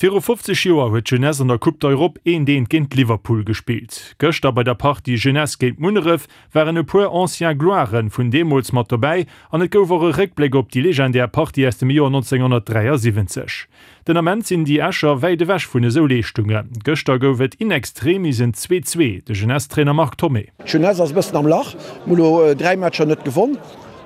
Viru 50 Joer huet d'Jeunesse an der Coupe d'Europe eent eent géint Liverpool gespillt. Gëschter bei der Partie Jeunesse géint Munneref waren e puer anciens Gloiren vun deemools mat dobäi an et gouf och e Réckbléck op déi legendär Partie aus dem Joer 1973. Den Ament sinn déi Escher wäit ewech vun esou Leeschtungen. Gëschter gouf et in extremis en 2, 2, de Jeunesse-Trainer Marc Thomé. D'Jeunesse ass e bëssen am Lach, mir hu lo 3 Matcher net gewonn,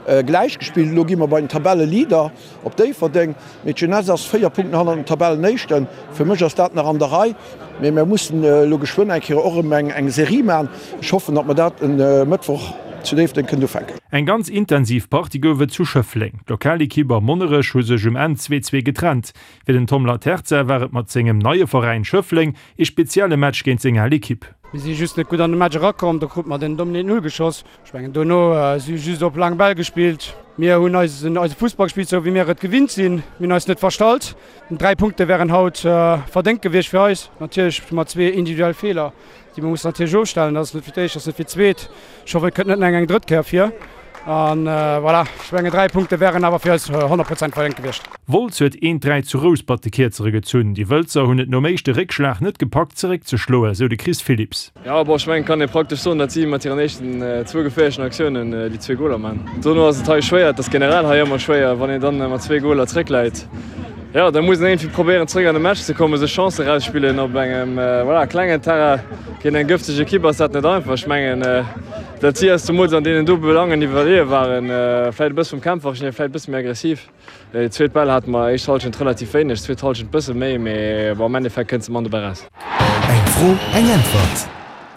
gläich gespillt. Elo gi mer bei den Tabelleleader op Déifferdeng. Mee d'Jeunesse ass 4 Punkten hannert dem Tabellenéischten. Fir mech ass dat nach an der Rei. Mee mir mussen elo geschwënn eng Kéier och erëm eng Serie maachen. Ech hoffen, datt mer dat e Mëttwoch zu Déifferdeng kënnen ufänken. Eng ganz intensiv Partie gouf et zu Schëffleng. D'Lokalekipp a Monnerech hu sech um Enn 2, 2 getrennt. Fir den Tom Laterza war et mat sengem neie Veräin Schëffleng ee spezielle Match géint seng al Ekipp. Mir si just net gutt an de Match erakomm, do krute mer den Dominique Null geschoss. Ech mengen dono si just op laang Bäll gespillt. Mir hunn eisen eise Fussball gespillt, sou wéi mir et gewinnt sinn. Mir hunn eis net verstallt. 3 Punkte wären haut verdéngt gewiescht fir eis. Natierlech hu mer zwee individuell Feeler, déi mer mussen natierlech ofstellen. Dat ass net fir d'éischt, dat ass net fir d'zweet. Ech hoffen, et kënnt net nach eng drëtt Kéier vir. An voilà, ech mengen 3 Punkte wären awer fir eis 100 Prozent verdéngt gewiescht. Wolz huet een 3 zu Rouspert de Kierzere gezunn. Déi Wëlzer hunn et nom éischte Réckschlag net gepackt zeréckzeschloen, sou de Chris Philipps. Jo, bon, ech mengen, et kann ee praktesch soen, datt si mat hiren éischten zwou geféierlechen Aktiounen déi zwee Goler man. Dono ass et hei schwéier, et ass generell hei ëmmer schwéier, wann een dann mat zwee Goler zréckläit. Jo, da muss een iergendwéi probéieren, zréck an de Match ze kommen, sech Chancen erausspillen. Op engem, voilà, klengen Terrain géint eng gëfteg Ekipp ass dat net einfach. Ech mengen, datt si eis zemools an deenen do Belangen iwwerleeë waren, vläicht e bësse vum Kämpfereschen hier, vläicht e bësse méi aggressiv. Déi zweet Bäll hate mer éischt Halschent relativ wéineg, zweet Halschent bësse méi, mee bon am Endeffekt kënnt se mann dobäi raus. Eng Fro, eng Äntwert.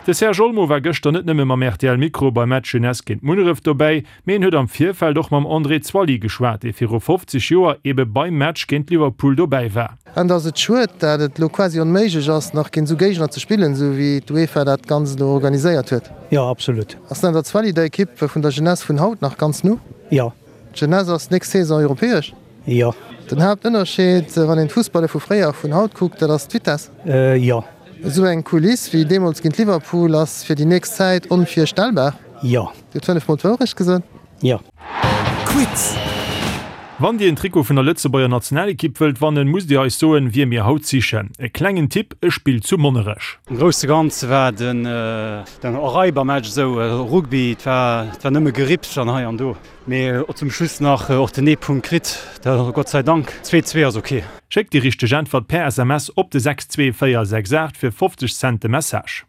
De Serge Olmo war gëschter net nëmme mam RTL-Mikro beim Match Jeunesse géint Munneref dobäi, mee en huet am Virfeld och mam André Zwally geschwat, dee viru 50 Joer ebe beim Match géint Liverpool dobäi war. An ass et schued, dat et elo quasi onméiglech ass, nach géint esou Géigner ze spillen, esou wéi d'UEFA dat Ganzt elo organiséiert huet? Jo, absolut. Ass den André Zwally der Ekipp vun der Jeunesse vun haut nach ganz no? Jo. D'Jeunesse ass d'nächst Saison europäesch? Jo. Den Haaptënnerscheed, wann een d'Fussballe vu fréier a vun haut kuckt, dat ass d'Vitess? Jo. Esou eng Kuliss wéi deemools géint Liverpool ass fir déi nächst Zäit onvirstellbar? Jo. Dir hutt 5 mol d'Wourecht gesot? Jo. Quiz! Wann Dir en Trikot vun der Lëtzebuerger Nationalekipp wëllt wannen, musst Dir eis soen, wie mir haut sichen. E klengen Tipp, E spillt zu Monnerech. Am grousse Ganze war den Raibermatch esou Rugby, et war nëmme Geripps an hei an do. Mee zum Schluss nach och den ee Punkt kritt, dat Gott sei Dank. 2, 2 ass ok. Schéckt déi richteg Äntwert per SMS op de 62468 fir 50 Cent de Message.